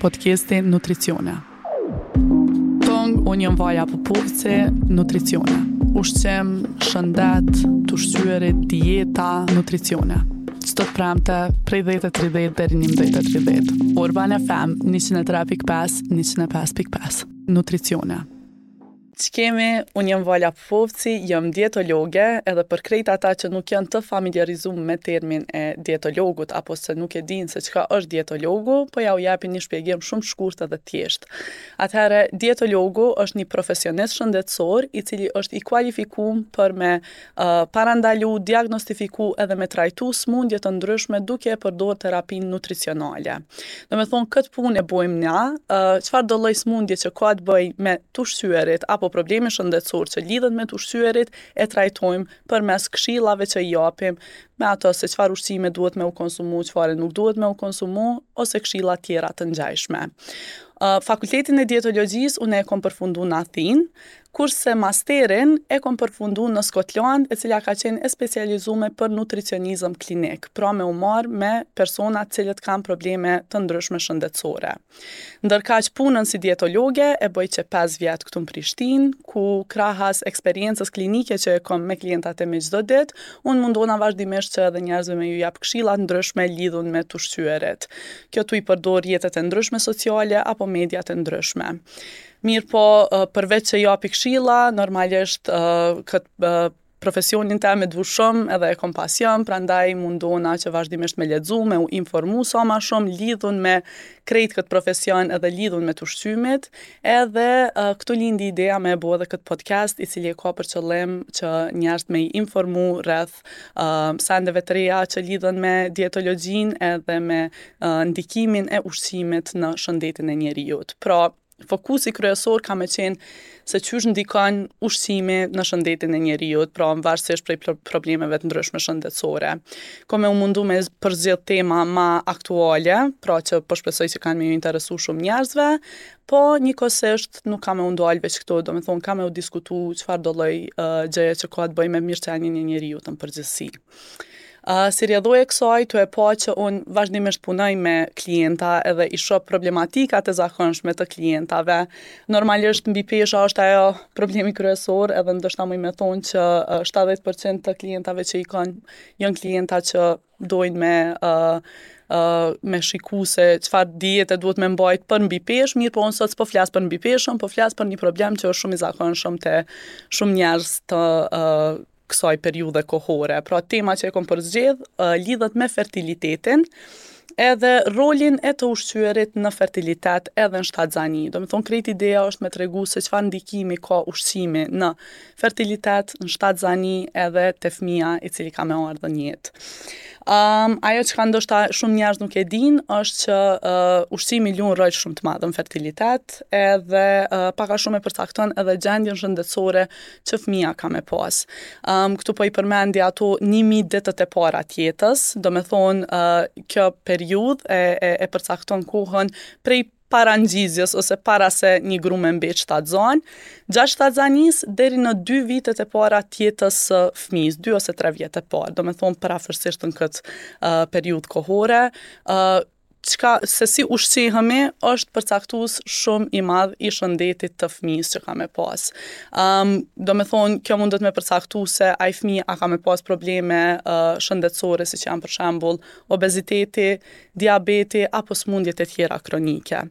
Podcasti Nutricione. Tong, unë jam Vaja Popovci, Nutricione. Ushqim, shëndet, të ushqyerit, dieta, nutricione. Çdo të premte, prej 10.30 deri 11.30. Urban FM, 103.5, 105.5. Nutricione. Ç'kemi, unë jam Vala Popovci, jam dietologe, edhe për krejt ata që nuk janë të familiarizuar me termin e dietologut apo se nuk e dinë se çka është dietologu, po ja u japin një shpjegim shumë shkurt edhe thjesht. Atëherë, dietologu është një profesionist shëndetësor i cili është i kualifikum për me uh, parandalu, diagnostifiku edhe me trajtu smundje të ndryshme duke e përdor terapinë nutricionale. Domethonë, këtë punë e bojmë na, çfarë do lloj smundje që ka të bëjë me të ushqyerit apo problemi shëndetësor që lidhet me të ushqyerit, e trajtojmë përmes këshillave që i japim me ato se çfarë ushqime duhet me u konsumu, çfarë nuk duhet me u konsumu, ose këshilla tjera të ngjashme. Fakultetin e dietologjisë unë e kom përfundu në Athinë, kurse masterin e kom përfundu në Skotland, e cila ka qenë e specializume për nutricionizëm klinik, pra me u marrë me persona të cilët kanë probleme të ndryshme shëndetësore. Ndërkaq punën si dietologe e bëj që 5 vjet këtu në Prishtinë, ku krahas eksperiencës klinike që e kom me klientat e mi çdo ditë, unë mundona vazhdimisht që edhe njerëzve me ju jap këshilla të ndryshme lidhun me të ushqyerit. Kjo tu i përdor rrjetet e ndryshme sociale apo mediat e ndryshme. Mirëpo, përveç që japi këshilla, normalisht këtë profesionin tem e du shumë edhe e kom pasion, prandaj mundona që vazhdimisht me lexu, me u informu sa ma shumë lidhun me krejt këtë profesion edhe lidhun me të ushqymit, edhe uh, këtu lindi ideja me e bo edhe këtë podcast i cili e ka për qëllim që njerëzit me i informu rreth uh, sendeve të reja që lidhen me dietologjinë edhe me uh, ndikimin e ushqimit në shëndetin e njeriut. Pra, fokusi kryesor ka me qenë se qysh ndikon ushqimi në shëndetin e njeriut, pra varësisht prej problemeve të ndryshme shëndetësore. Ko me u mundu me përzgjedh tema ma aktuale, pra që po shpresoj që kanë me ju interesu shumë njerëzve, po njëkohësisht nuk ka me u ndalë veç këtu, do me thonë ka me u diskutu çfarë do lloj uh, gjëje që ka të bëjë me mirëqenien e njeriut në përgjithësi. Uh, si rrjedhojë e kësaj, tu e pa që unë vazhdimisht punoj me klienta edhe i shoh problematikat e zakonshme të klientave. Normalisht mbipesha është ajo problemi kryesor, edhe ndoshta muj me thonë që 70% të klientave që i kanë janë klienta që dojnë me uh, uh, me shiku se çfarë diete duhet me mbajt për mbipeshë, mirëpo unë sot s'po flas për mbipeshën, po flas për një problem që është shumë i zakonshëm te shumë njerëz të uh, kësaj periudhe kohore. Pra tema që e kom përzgjedh uh, lidhet me fertilitetin, edhe rolin e të ushqyerit në fertilitet edhe në shtatzani. Do me thonë, krejt ideja është me tregu se çfarë ndikimi ka ushqimi në fertilitet, në shtatzani edhe te fëmija i cili ka me ardhë në jetë. Um, ajo që ka ndoshta shumë njerëz nuk e dinë është që uh, ushqimi luan rol shumë të madh në fertilitet edhe uh, pak a shumë e përcakton edhe gjendjen shëndetësore që fëmija ka me pas. Um, këtu po i përmendi ato 1000 ditët e para të jetës, do me thonë uh, kjo periudhë e, e, e përcakton kohën prej para ngjizjes ose para se një gru me mbet shtatzan, gjatë shtatzanisë deri në dy vitet e para të jetës së fëmijës, dy ose tre vjet e parë, do me thonë përafërsisht në këtë uh, periudhë kohore, uh, çka se si ushqehemi është përcaktues shumë i madh i shëndetit të fëmijës që ka me pas. Um, do me thonë, kjo mundet me përcaktu se ai fëmijë a ka me pas probleme uh, shëndetësore, siç janë për shembull obeziteti, diabeti apo sëmundjet e tjera kronike.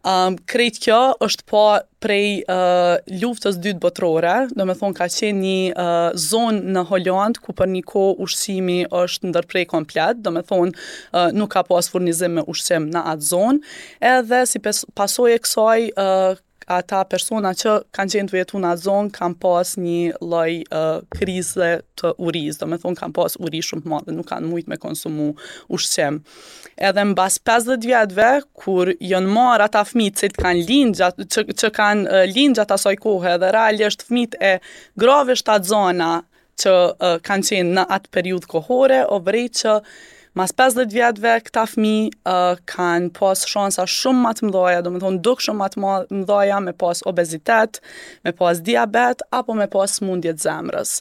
Um, krejt kjo është pa prej uh, luftës dytë botërore, do me thonë ka qenë një uh, zonë në Holandë ku për një kohë ushqimi është ndërpre komplet, do me thonë uh, nuk ka pas furnizim me ushqim në atë zonë, edhe si pasojë e kësaj uh, ata persona që kanë qenë tu jetu në atë zonë kanë pas një lloj uh, krize të urisë, do me thonë kanë pas uri shumë të madhe, nuk kanë mujt me konsumu ushqim. Edhe mbas 50 vjetëve, kur janë marrë ata fëmijë që kanë lind gjatë që, që kanë uh, lind gjatë asaj kohe dhe realisht fëmijët e grave shtatzana që uh, kanë qenë në atë periudhë kohore, o vrejt që mas 50 vjetëve këta fëmijë uh, kanë pas shansa shumë më të mëdha, do me thonë dukshëm më të mëdha me pas obezitet, me pas diabet apo me pas sëmundje të zemrës.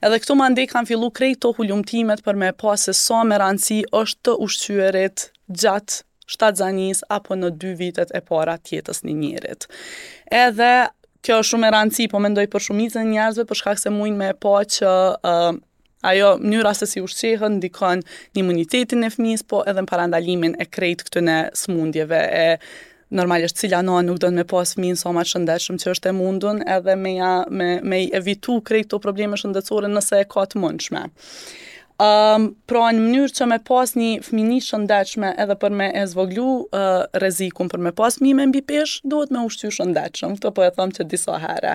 Edhe këtu mandej kanë fillu krejt to hulumtimet për me pa se sa me rëndësi është të ushqyerit gjatë shtatzanisë apo në dy vitet e para të jetës një njerit. Edhe kjo është shumë e rëndësi, po mendoj për shumicën e njerëzve për shkak se mujnë me pa që uh, ajo mënyra se si ushqehen ndikon në imunitetin e fëmijës, po edhe në parandalimin e krejt këtyne smundjeve e normalisht cila nanë nuk don me pas fëmijën sa ma të shëndetshëm që është e mundun edhe me ja me me i evitu krejt këto probleme shëndetësore nëse e ka të mundshme. Um, pra në mënyrë që me pas një fëmini shëndetshme edhe për me e zvoglu uh, rrezikun për me pas fëmijë me mbipeshë, duhet me ushqy shëndetshëm. Këtë po e them që disa herë.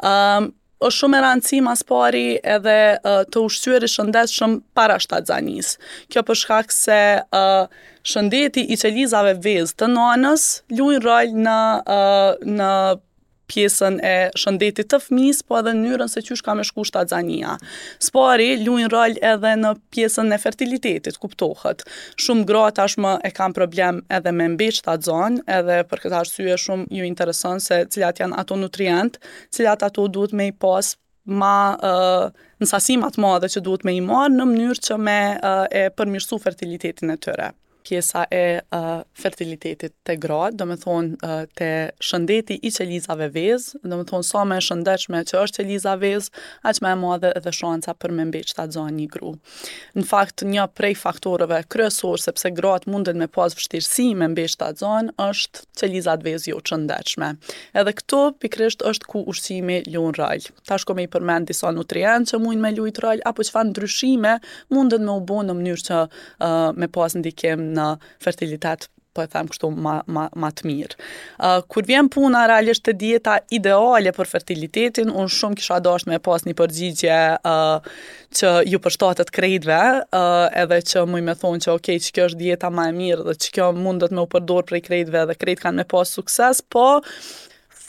Um, është shumë e rëndësi mas pari edhe uh, të ushqyeri shëndetshëm para shtatzanisë. Kjo për shkak se uh, shëndeti i qelizave vezë të nanës luajnë rol në uh, në pjesën e shëndetit të fëmijës, po edhe në mënyrën se qysh ka me shku shtatzania. S'pari, luajnë rol edhe në pjesën e fertilitetit, kuptohet. Shumë gra tashmë e kanë problem edhe me mbet shtatzan, edhe për këtë arsye shumë ju intereson se cilat janë ato nutrient, cilat ato duhet me i pas ma uh, në sasi ma të madhe që duhet me i marrë në mënyrë që me uh, e përmirësu fertilitetin e tyre pjesa e uh, fertilitetit te gratë, do me thonë uh, te shëndeti i qelizave vezë, do me thonë sa më e shëndetshme që është qeliza vezë, aq më e madhe edhe shansa për me mbet shtatzan një gru. Në fakt, një prej faktorëve kryesor sepse gratë munden me pas vështirësi me mbet shtatzan është qelizat vezë jo të shëndetshme. Edhe këtu pikërisht është ku ushqimi luan rol. Tash ko me i përmend disa nutrientë që mujnë me lujt rol apo çfarë ndryshime munden me u bo në mënyrë që uh, me pas ndikim në fertilitet po e them kështu ma, ma, ma të mirë. Uh, kur vjen puna realisht te dieta ideale për fertilitetin, unë shumë kisha dashur me pas një përgjigje uh, që ju përshtatet krejtve, uh, edhe që muj me thonë që ok, që kjo është dieta ma e mirë dhe që kjo mundet me u përdor prej krejtve dhe krejt kanë me pas sukses, po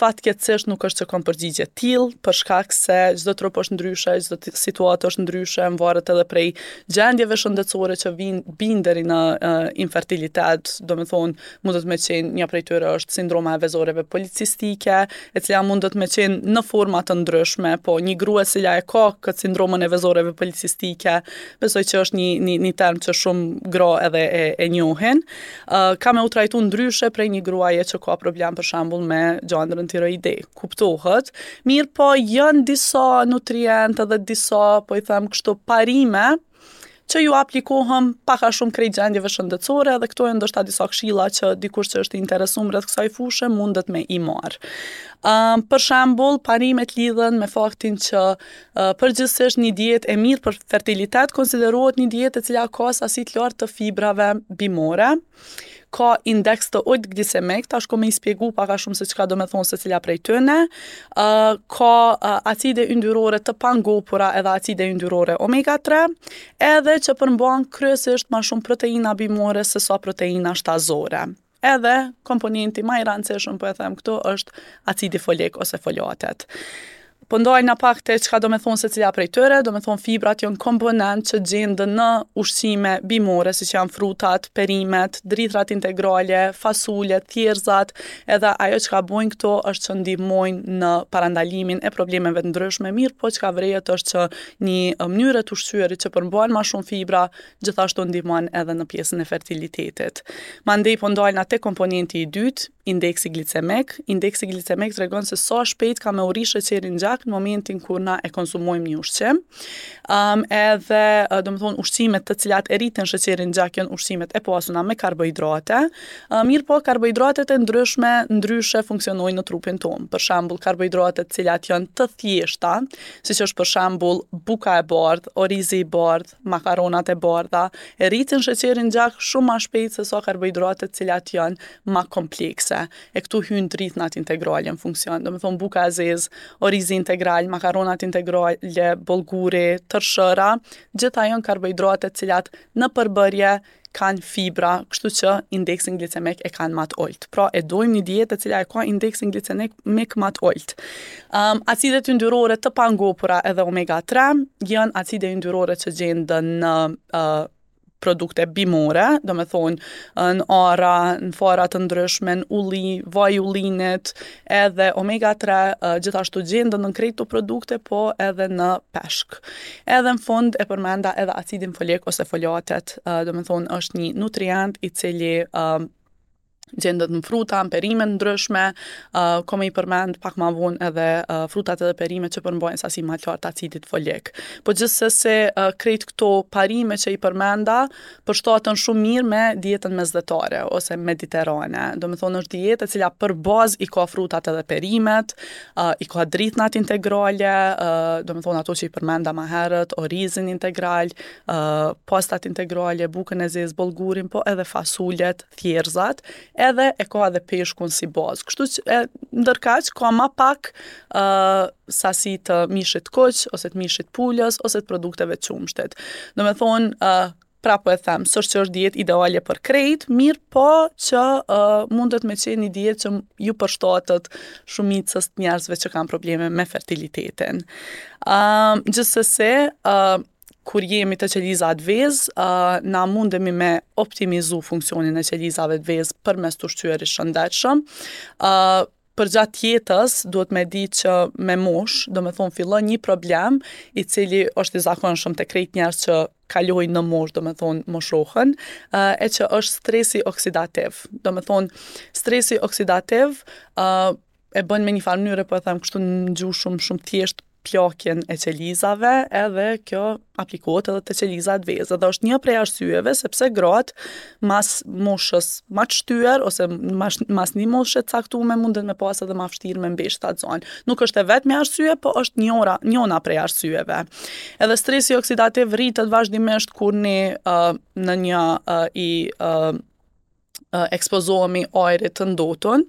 Fatkeqësisht nuk është që kom përgjigje të tillë, për shkak se çdo trup është ndryshe, çdo situatë është ndryshe, varet edhe prej gjendjeve shëndetësore që vijnë bijnë deri në uh, infertilitet, do me thonë, mundet me qenë, një prej tyre është sindroma e vezoreve policistike, e cila mundet me qenë në forma të ndryshme, po një grua e cila e ka këtë sindromën e vezoreve policistike, besoj që është një, një, një term që shumë gra edhe e, e njohin, uh, ka me u trajtu ndryshe prej një gruaje që ka problem për shembull me gjandrën tiroide. Kuptohet. Mirëpo janë disa nutrientë dhe disa, po i them kështu, parime që ju aplikohen pak a shumë krejt gjendjeve shëndetësore dhe këto janë ndoshta disa këshilla që dikush që është i interesuar rreth kësaj fushe mundet me i marr. Um, për shembull, parimet lidhen me faktin që Përgjithësisht një dietë e mirë për fertilitet konsiderohet një dietë e cila ka sasi të lartë të fibrave bimore, ka indeks të ulët glicemik, tash ko me i spjegu pak a shumë se çka do me thonë secila prej tyne, uh, ka uh, acide yndyrore të pangopura edhe acide yndyrore omega 3, edhe që përmban kryesisht ma shumë proteina bimore se sa proteina shtazore. Edhe komponenti ma i rëndësishëm, po e them këtu, është acidi folik ose folatet. Po ndalna pak te çka do me thonë secila prej tyre, do me thonë fibrat janë komponent që gjenden në ushqime bimore, siç janë frutat, perimet, drithrat integrale, fasulet, thjerrëzat, edhe ajo çka bojnë këto është që ndihmojnë në parandalimin e problemeve të ndryshme, mirëpo çka vërehet është që një mënyrë e të ushqyerit që përmban ma shumë fibra, gjithashtu ndihmon edhe në pjesën e fertilitetit. Mandej po ndalna te komponenti i dytë, indeksi glicemik. Indeksi glicemik tregon se sa shpejt ka me u rrit sheqeri në gjak në momentin kur na e konsumojmë një ushqim. Um, edhe, do me thonë, ushqimet të cilat e rritin sheqerin në gjak janë ushqimet e pasuna me karbohidrate. Uh, mirëpo, karbohidratet e ndryshme ndryshe funksionojnë në trupin tonë. Për shembull, karbohidratet të cilat janë të thjeshta, siç është për shembull buka e bardhë, orizi i bardhë, makaronat e bardha e rritin sheqerin në gjak shumë ma shpejt se sa karbohidratet të cilat janë ma komplekse. E këtu hyjnë drithnat integrale në funksion, do me thonë buka e zezë, orizi integral, makaronat integrale, bollguri, tërshëra, gjitha janë karbohidrate të cilat në përbërje kanë fibra, kështu që indeksin glicemik e kanë ma të ulët. Pra e dojmë një dietë e cila e ka indeksin glicemik ma të ulët. Um, acidet yndyrore të pangopura edhe omega 3 janë acide yndyrore që gjenden në uh, produkte bimore, domethonë në arra, në fara të ndryshme, në ulli, vaj ullinit, edhe omega 3 gjithashtu gjenden në krejt këto produkte, po edhe në peshk. Edhe në fund e përmenda edhe acidin folik ose folatet, domethonë është një nutrient i cili gjendet në fruta, në perime të ndryshme, uh, kom me i përmend pak ma vonë edhe uh, frutat edhe perime që përmbajnë sasi ma të lartë acidit folik. Po gjithsesi uh, krejt këto parime që i përmenda përshtaten shumë mirë me dietën mesdhetare ose mediterane. Domethonë është dietë e cila për bazë i ka frutat edhe perimet, uh, i ka drithnat integrale, uh, domethonë ato që i përmenda ma herët, orizin integral, uh, pastat integrale, bukën e zezë, bollgurin, po edhe fasulet, thjerrëzat, edhe e ka edhe peshkun si bazë. Kështu që e, ndërkaq ka ma pak uh, sasi të mishit kuq ose të mishit pulës ose të produkteve të qumështit. Domethonë, uh, prapë po e them, s'është që është dietë ideale për krejt, mirëpo që uh, mundet me qenë një dietë që ju përshtatet shumicës të njerëzve që kanë probleme me fertilitetin. Uh, gjithsesi, uh, kur jemi te qelizat vezë, uh, na mundemi me optimizu funksionin e qelizave të vezë përmes të ushqyerit shëndetshëm. Uh, përgjatë jetës duhet me di që me moshë, domethonë fillon një problem i cili është i zakonshëm te krejt njerëz që kalojnë në moshë, domethonë moshohen, uh, e që është stresi oksidativ. Domethonë, stresi oksidativ uh, e bën me një farë mënyre, po e them kështu në gjuhë shumë shumë thjesht plakjen e qelizave, edhe kjo aplikohet edhe te qelizat vezë. Dhe është një prej arsyeve sepse gratë mas moshës ma të shtyer ose mas, mas një moshe të caktume munden me pas edhe ma vështirë me mbet shtatzon. Nuk është e vetmja arsye, po është njëra, njona prej arsyeve. Edhe stresi oksidativ rritet vazhdimisht kur ne uh, në një uh, i uh, ekspozohemi ajrit të ndotun,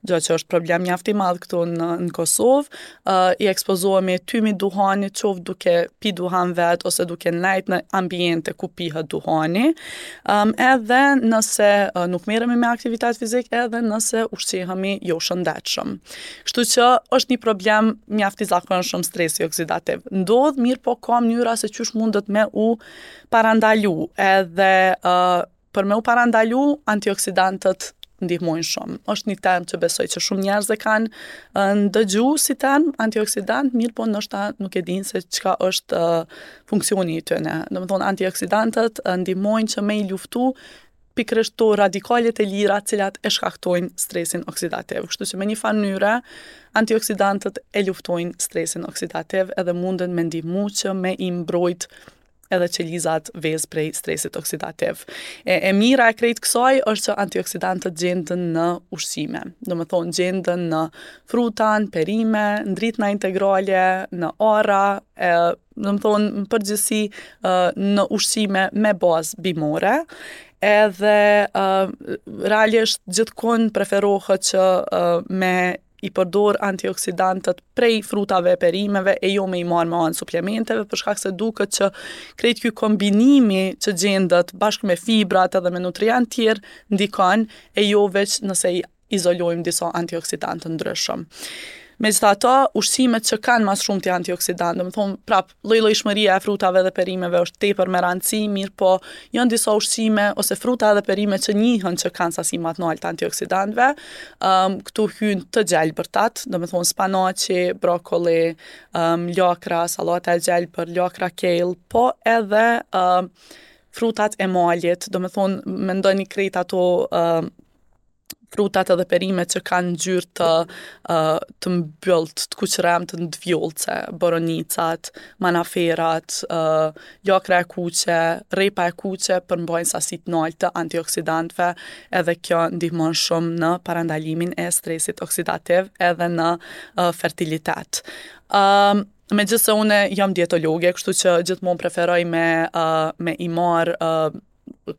gjë që është problem mjaft i madh këtu në, në Kosovë, uh, i ekspozohemi tymit duhanit, qoftë duke pi duhan vet ose duke nejt në ambiente ku pihet duhani, um, edhe nëse uh, nuk merremi me aktivitet fizik, edhe nëse ushqehemi jo shëndetshëm. Kështu që është një problem mjaft i zakonshëm stresi oksidativ. Ndodh mirëpo ka mënyra se qysh mundet me u parandalu, edhe uh, Për me u parandalu, antioksidantët ndihmojnë shumë. Është një term që besoj që shumë njerëz e kanë ndëgju si term antioksidant, mirëpo ndoshta nuk e dinë se çka është funksioni i tyre. Domethonë antioksidantët ndihmojnë që me i luftu pikërisht to radikalet e lira të cilat e shkaktojnë stresin oksidativ. Kështu që me një farë mënyre antioksidantët e luftojnë stresin oksidativ edhe munden me ndihmu që me i mbrojt edhe qelizat vezë prej stresit oksidativ. E, e mira e krejt kësaj është që antioksidantët gjenden në ushqime. Domethonë, gjenden në fruta, në perime, në drithna integrale, në arra, e, domethonë, në përgjithësi në ushqime me bazë bimore, edhe uh, realisht gjithkund preferohet që uh, me i përdor antioksidantët prej frutave e perimeve e jo me i marrë me anë suplementeve, për shkak se duket që krejt ky kombinimi që gjendet bashkë me fibrat edhe me nutrientë tjerë ndikon e jo veç nëse i izolojmë disa antioksidantë të ndryshëm. Megjithatë, ushqimet që kanë ma së shumti antioksidantë, domethonë, prap, llojllojshmëria e frutave dhe perimeve është tepër me rëndësi, mirëpo janë disa ushqime ose fruta dhe perime që njihen që kanë sasi ma të naltë antioksidantëve. Um, këtu hyjnë të gjelbërtat, domethonë spanaqi, brokoli, um, lakra, sallata e gjelbër, lakra kale, po edhe um, frutat e malit, domethonë mendoni krejt ato um, frutat edhe perimet që kanë ngjyrë të uh, të mbylltë, të kuqërremtë, të vjollce, boronicat, manaferat, uh, lakra e kuqe, rrepa e kuqe përmbajnë sasi të naltë të antioksidantëve, edhe kjo ndihmon shumë në parandalimin e stresit oksidativ edhe në uh, fertilitet. Um, megjithëse unë jam dietologe, kështu që gjithmonë preferoj me uh, me i marr uh,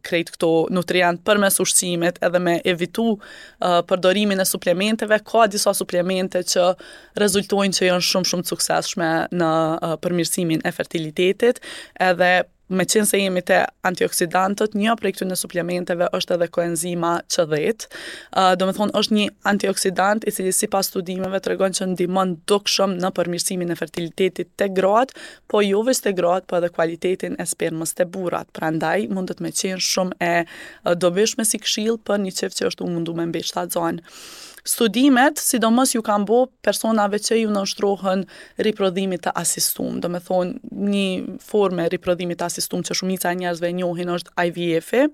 krejt këto nutrient përmes ushqimit edhe me evitu uh, përdorimin e suplementeve, ka disa suplemente që rezultojnë që janë shumë shumë të suksesshme në uh, përmirësimin e fertilitetit, edhe Meqenëse jemi te antioksidantët, një prej këtyre suplementeve është edhe koenzima Q10. Uh, domethonë, është një antioksidant i cili sipas studimeve tregon që ndihmon dukshëm në përmirësimin e fertilitetit te gratë, po jo veç te gratë, po edhe kualitetin e spermës te burrat. Prandaj, mundet me qenë shumë e dobishme si këshillë për një çift që është tu u mundu me mbet shtatzan. Studimet, sidomos ju kanë bo personave që ju nënshtrohen riprodhimit të asistum. Domethonë, një formë e riprodhimit të asistum që shumica e njerëzve e njohin është IVF-i,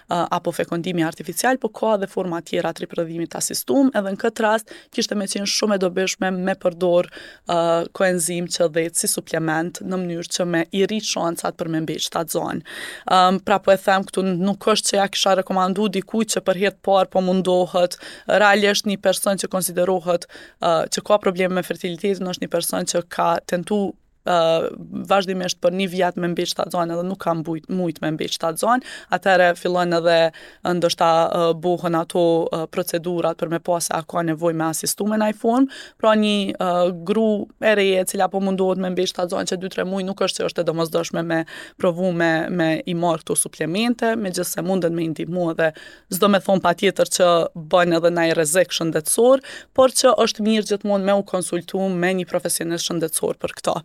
apo fekondimi artificial, po ka edhe forma tjera të riprodhimit të asistum, edhe në këtë rast kishte me qenë shumë e dobishme me përdor uh, koenzim Q10 si suplement në mënyrë që me i rrit shancat për me mbet shtatzan. Um, pra po e them këtu nuk është që ja kisha rekomandu dikujt që për herë të parë po mundohet, realisht një person që konsiderohet uh, që ka probleme me fertilitetin është një person që ka tentu uh, vazhdimisht për një vjet me mbet shtatzan edhe nuk ka mbujt, mujt me mbet shtatzan, atëherë fillon edhe ndoshta uh, bohen ato uh, procedurat për me pa se a ka nevojë me asistu me naj formë, pra një uh, gru e re e cila po mundohet me mbet shtatzan që 2-3 muaj nuk është që është e domosdoshme me provu me, me i marrë këto suplemente, megjithëse munden me i ndihmu edhe s'do me thonë patjetër që bën edhe naj rrezik shëndetësor, por që është mirë gjithmonë me u konsultu me një profesionist shëndetësor për këto.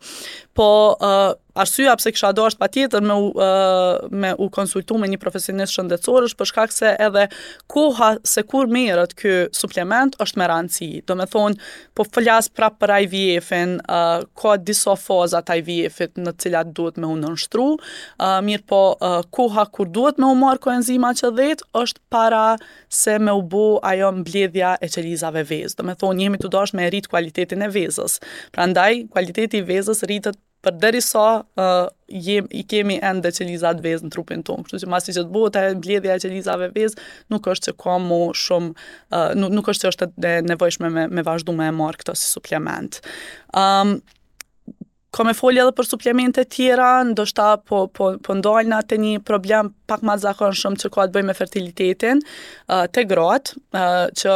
Po, uh, arsyeja pse kisha dashur patjetër me u, uh, me u konsultu me një profesionist shëndetësor është për shkak se edhe koha se kur merret ky suplement është me rëndësi. Domethonë, po flas prapë për IVF-in, uh, ka disa faza të IVF-it në të cilat duhet me u nënshtru, uh, mirëpo uh, koha kur duhet me u marrë koenzima Q10 është para se me u bo ajo mbledhja e qelizave vezë. Domethonë, jemi tu dashtë me rrit kualitetin e vezës. Prandaj, kualiteti i vezës rritet përderisa uh, jem, i kemi ende qelizat vezë në trupin tonë. Kështu që masi që të bëhet ajo mbledhja e qelizave vezë, nuk është që ka mo shumë, uh, nuk, nuk është që është e nevojshme me, me vazhdu me e marrë këto si suplement. Um, Ka me folë edhe për suplemente tjera, ndoshta po, po, po ndalna te një problem pak ma të zakonshëm që ka të bëjë me fertilitetin, uh, te gratë, uh, që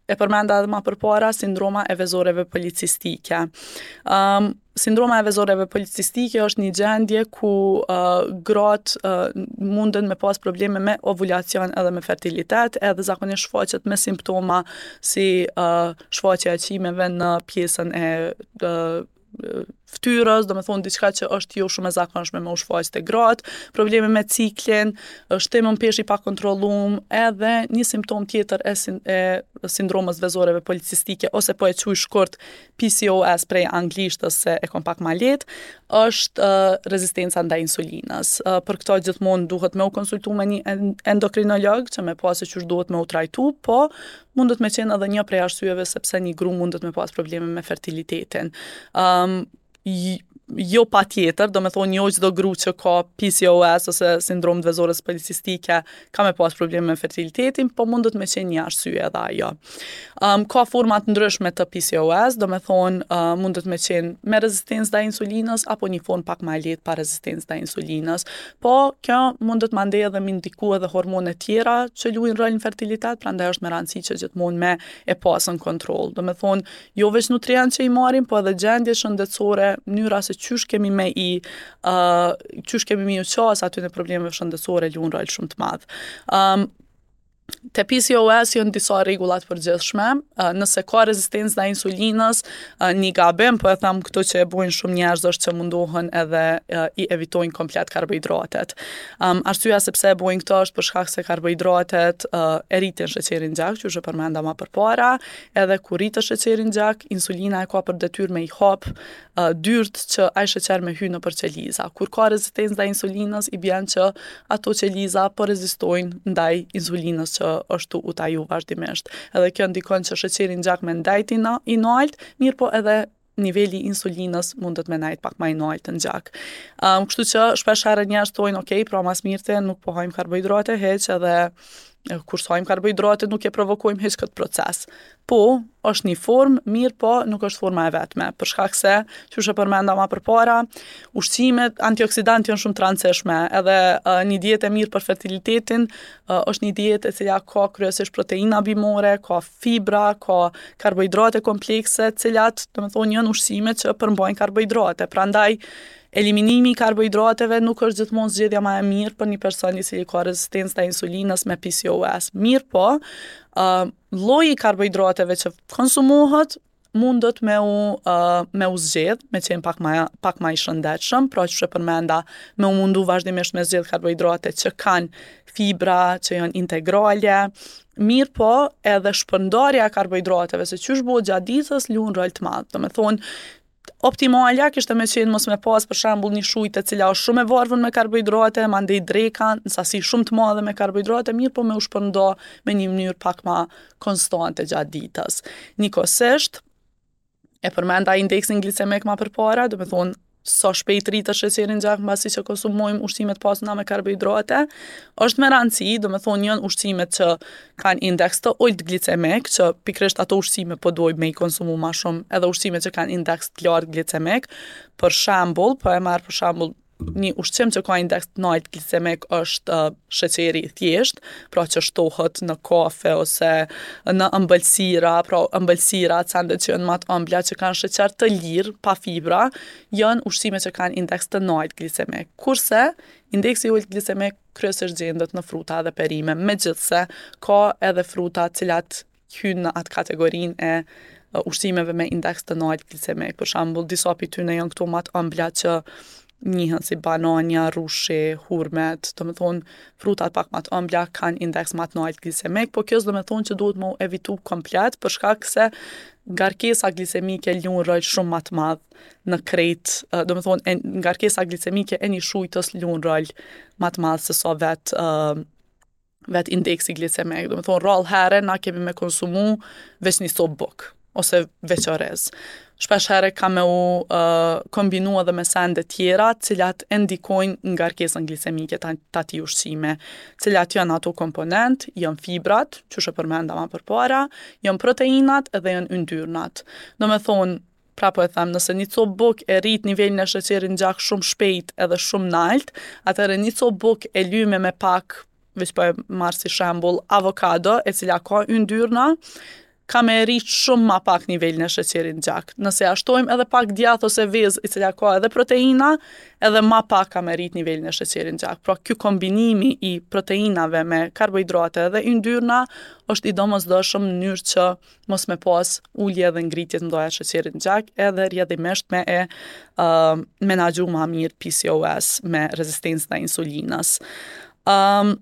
e përmenda edhe ma përpara, sindroma e vezoreve policistike. Um, sindroma e vezoreve policistike është një gjendje ku uh, gratë uh, munden me pas probleme me ovulacion edhe me fertilitet, edhe zakonisht shfaqet me simptoma si uh, shfaqja e qimeve në pjesën e uh, fytyrës, domethonë diçka që është jo shumë e zakonshme me u shfaq te gratë, probleme me ciklin, shtim në peshë i pakontrollum, edhe një simptom tjetër e, sin, e sindromës vezoreve policistike, ose po e quj shkurt PCOS prej anglishtës se e kom pak ma lehtë, është uh, rezistenca ndaj insulinës. Uh, për këto gjithmonë duhet me u konsultu me një endokrinolog që me pa se qysh duhet me u trajtu, po mundet me qenë edhe një prej arsyeve sepse një gru mundet me pas probleme me fertilitetin. Um, jo patjetër, domethonë jo çdo gru që ka PCOS ose sindromë të vezores policistike ka me pas probleme me fertilitetin, po mundet me qenë një arsye edhe ajo. Um, ka forma të ndryshme të PCOS, domethonë uh, mundet me qenë me rezistencë ndaj insulinës apo një formë pak ma e lehtë pa rezistencë ndaj insulinës. Po, kjo mundet mandej edhe me ndiku edhe hormone tjera që luajnë rol në fertilitet, prandaj është me rëndësi që gjithmonë me e pas në kontroll. Domethonë, jo veç nutrient që i marrim, po edhe gjendje shëndetësore, mënyra se qysh kemi me i, uh, qysh kemi me ju qas atyne problemeve shëndetësore luan rol shumë të madh. Um, Te PCOS janë disa rregulla të përgjithshme. Nëse ka rezistencë ndaj insulinës, një gabim, po e them këtu që e bojnë shumë njerëz është që mundohen edhe i evitojnë komplet karbohidratet. Um, arsyeja se pse e bojnë këtë është për shkak se karbohidratet uh, e rritin sheqerin në gjak, qysh e përmenda ma përpara, edhe kur rritet sheqeri në gjak, insulina e ka për detyrë me i hap uh, dyrt që ai sheqer me hy nëpër qeliza. Kur ka rezistencë ndaj insulinës, i bjen që ato qeliza po rezistojnë ndaj insulinës që është tu u taju vazhdimisht. Edhe kjo ndikon që sheqeri në gjak me ndajt i, na, i nalt, mirëpo edhe niveli i insulinës mundet me najt pak ma i nalt në gjak. Um, kështu që shpesh herë njerëz thonë, ok, pra ma s'mirti nuk po hajmë karbohidrate hiç edhe kur s'hajmë karbohidrate nuk e provokojmë hiç këtë proces. Po, është një formë, mirëpo nuk është forma e vetme, për shkak se, qysh e përmenda ma përpara, ushqimet antioksidantë janë shumë të rëndësishme, edhe uh, një dietë e mirë për fertilitetin uh, është një dietë e cila ka kryesisht proteina bimore, ka fibra, ka karbohidrate komplekse, të cilat, domethonë, janë ushqime që përmbajnë karbohidrate. Prandaj. Eliminimi i karbohidrateve nuk është gjithmonë zgjedhja ma e mirë për një person i cili ka rezistencë ndaj insulinës me PCOS. Mirëpo, uh, lloji i karbohidrateve që konsumohet mundet me u, uh, me u zgjedh, me qenë pak ma, pak ma i shëndetshëm, pra qysh e përmenda, me u mundu vazhdimisht me zgjedh karbohidrate që kanë fibra, që janë integrale, mirëpo edhe shpërndarja e karbohidrateve, se qysh bohet gjatë ditës, luan rol të madh. Domethonë, Optimalja kishte me qenë mos me pas për shembull një shujtë e cila është shumë e varfër me karbohidrate, mandej dreka në sasi shumë të madhe me karbohidrate, mirëpo me u shpërnda me një mënyrë pak ma konstante gjatë ditës. Njëkohësisht, e përmenda indeksin glicemik ma përpara, domethonë sa shpejt rritet sheqeri në gjak mbasi që konsumojmë ushqime të pasuna me karbohidrate, është me rëndësi, domethonë janë ushqimet që kanë indeks të ulët glicemik, që pikërisht ato ushqime po dojmë me i konsumu ma shumë, edhe ushqime që kanë indeks të lartë glicemik. Për shembull, po e marr për shembull një ushqim që ka indeks të lartë glicemik është uh, sheqeri i thjeshtë, pra që shtohet në kafe ose në ëmbëlsira, pra ëmbëlsira, sendet që janë ma të ëmbla që kanë sheqer të lirë, pa fibra, janë ushqime që kanë indeks të lartë glicemik. Kurse indeksi i ulët glicemik kryesisht gjendet në fruta dhe perime, megjithëse ka edhe fruta të cilat hyjnë në atë kategorinë e ushqimeve me indeks të lartë glicemik. Për shembull, disa prej tyne janë këto ma të ëmbla që njihen si banania, rrushi, hurmet, domethonë frutat pak ma të ëmbla kanë indeks ma të lartë glicemik, po kjo s'domethonë që duhet me u evitu komplet për shkak se ngarkesa glicemike luan rol shumë ma të madh në krejt, domethonë, e, ngarkesa glicemike e një shujtës luan rol ma të madh se sa vet, uh, vet indeksi glicemik. Domethonë, rrallë herë na kemi me konsumu veç një copë bukë ose veç orez. Shpesh herë ka me u uh, kombinu edhe me sende tjera, cilat e ndikojnë ngarkesën glicemike të atij ushqimi. Cilat janë ato komponent, janë fibrat, qysh e përmenda ma përpara, janë proteinat edhe janë yndyrnat. Domethonë, Pra po e them, nëse një copë bukë e rrit nivelin e sheqerit në gjak shumë shpejt edhe shumë nalt, atëherë një copë bukë e lyme me pak, veç po e marr si shembull, avokado, e cila ka yndyrna, ka me rrit shumë ma pak nivelin e sheqerit në gjak. Nëse ja shtojmë edhe pak djath ose vezë, e cila ka edhe proteina, edhe ma pak ka me rrit nivelin e sheqerit në gjak. Pra ky kombinimi i proteinave me karbohidrate dhe yndyrna është i domosdoshëm në mënyrë që mos me pas ulje dhe ngritje të mëdha të sheqerit në gjak edhe rrjedhimisht me e uh, menaxhu ma mirë PCOS me rezistencë ndaj insulinës. Um,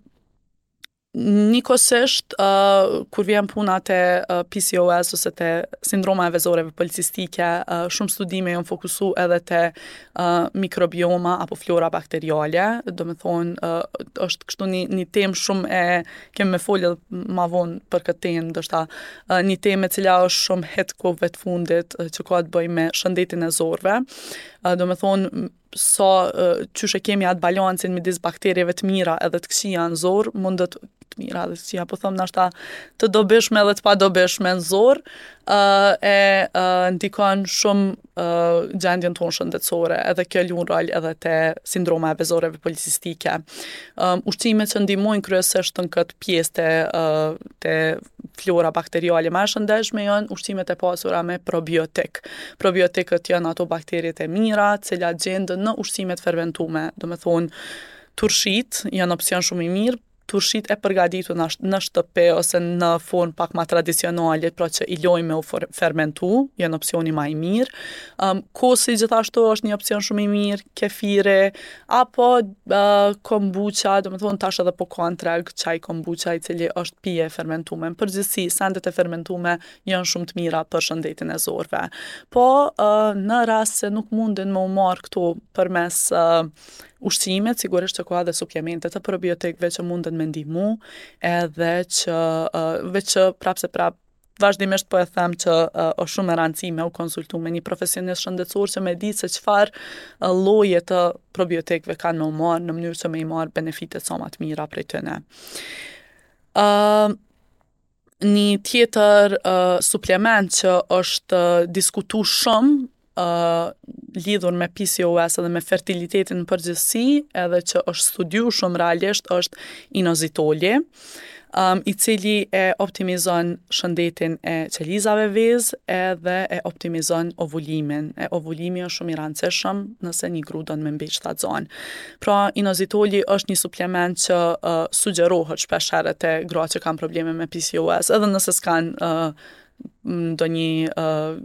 Njëkohësisht, uh, kur vjen puna te uh, PCOS ose te sindroma e vezoreve policistike, uh, shumë studime janë fokusu edhe te uh, mikrobioma apo flora bakteriale, domethonë, uh, është kështu një, një temë shumë e Kemi me folë edhe ma vonë për këtë temë, ndoshta një temë e cila është shumë hit kohëve të fundit që ka të bëjë me shëndetin e zorrëve. Domethonë, sa qysh e kemi atë balancin midis bakterieve të mira edhe të këqija në zorrë, mundet të mira edhe të këqija, po them ndoshta të dobishme edhe të padobishme në zorrë, e ndikon shumë uh, gjendjen tonë shëndetësore, edhe kjo luan rol edhe te sindroma e vezoreve policistike. Um, ushqimet që ndihmojnë kryesisht në këtë pjesë te, uh, te flora bakteriale ma e shëndetshme janë ushqimet e pasura me probiotik. Probiotikët janë ato bakteriet e mira, të cilat gjenden në ushqimet fermentume, domethonë turshitë janë opsion shumë i mirë, turshitë e përgatitur në, në shtëpi ose në formë pak ma tradicionale, pra që i lojmë me u fermentu, janë opsioni ma i mirë. Um, kosi gjithashtu është një opsion shumë i mirë, kefiri, apo uh, kombucha, domethonë tash edhe po ka në treg çaj kombucha i cili është pije e fermentume. Në përgjithësi, sendet e fermentume janë shumë të mira për shëndetin e zorrëve. Po, uh, në rast se nuk mundin me u marrë këto përmes uh, ushqimit, sigurisht që ka edhe suplemente të probiotikëve që munden me ndihmu, edhe që uh, veç që prapë se prapë vazhdimisht po e them që uh, është shumë me rëndësi me u konsultu me një profesionist shëndetësor që me ditë se çfarë uh, lloje të probiotikëve kanë me u marrë në mënyrë që me i marrë benefitet sa ma të mira prej tyne. Uh, një tjetër uh, suplement që është uh, diskutu shumë uh, lidhur me PCOS edhe me fertilitetin në përgjithësi, edhe që është studiu shumë realisht është inozitoli. um, i cili e optimizon shëndetin e qelizave vezë edhe e optimizon ovulimin. E ovulimi është shumë i rëndësishëm nëse një gru don me mbet shtatzan. Pra, inozitoli është një suplement që uh, sugjerohet shpesh herë te gratë që kanë probleme me PCOS, edhe nëse s'kanë uh, ndonjë uh,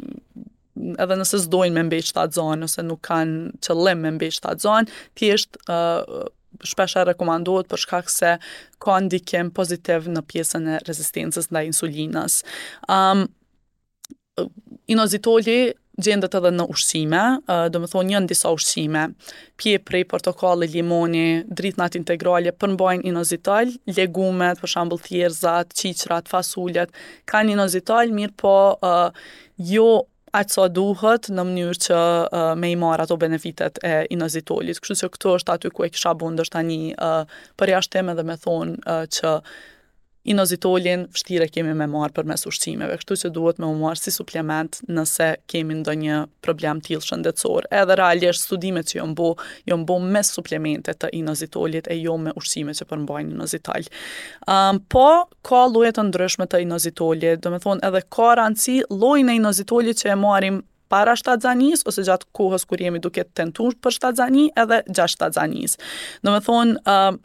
edhe nëse s'dojnë me mbet shtatzan ose nuk kanë qëllim me mbet shtatzan, thjesht uh, shpesh herë rekomandohet për shkak se ka ndikim pozitiv në pjesën e rezistencës ndaj insulinës. Um, inozitoli gjendet edhe në ushqime, domethonë janë disa ushqime, pjepri, portokalli, limoni, drithnat integrale përmbajnë inozitol, legumet, për shembull thjerrëzat, qiqrat, fasulet, kanë inozitol, mirëpo uh, jo aq sa duhet në mënyrë që uh, me i marrë ato benefitet e inozitolit. Kështu që këtu është aty ku e kisha bo ndoshta një uh, përjashtim edhe me thonë uh, që inozitolin vështirë e kemi me marrë përmes ushqimeve, kështu që duhet me u marrë si suplement nëse kemi ndonjë problem tillë shëndetësor. Edhe realisht studimet që janë bo, janë bo me suplemente të inozitolit e jo me ushqime që përmbajnë inozitol. Um, po, ka lloje të ndryshme të inozitolit, domethonë edhe ka rëndësi llojin e inozitolit që e marrim para shtatzanisë ose gjatë kohës kur jemi duke tentuar për shtatzani edhe gjatë shtatzanisë. Domethonë, uh,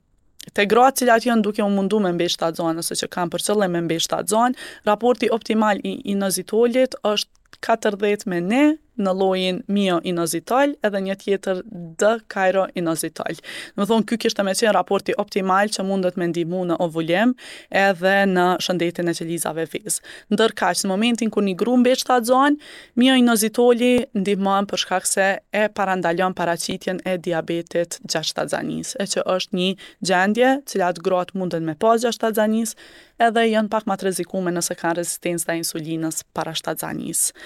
te gratë cilat janë duke u mundu me mbet shtatzan ose që kanë për qëllim me mbet shtatzan, raporti optimal i inozitolit është 40 me 1 në llojin mio inozitol edhe një tjetër d kajro inozitol. Domethonë, ky kishte me qenë raporti optimal që mundet me ndihmu në ovulim edhe në shëndetin e qelizave vezë. Ndërkaq, në momentin kur një gru mbet shtatzan, mio inozitoli ndihmon për shkak se e parandalon paraqitjen e diabetit gjatë shtatzanisë, e që është një gjendje cilat gratë munden me pas gjatë shtatzanisë, edhe janë pak ma të rrezikume nëse kanë rezistencë ndaj insulinës para shtatzanisë.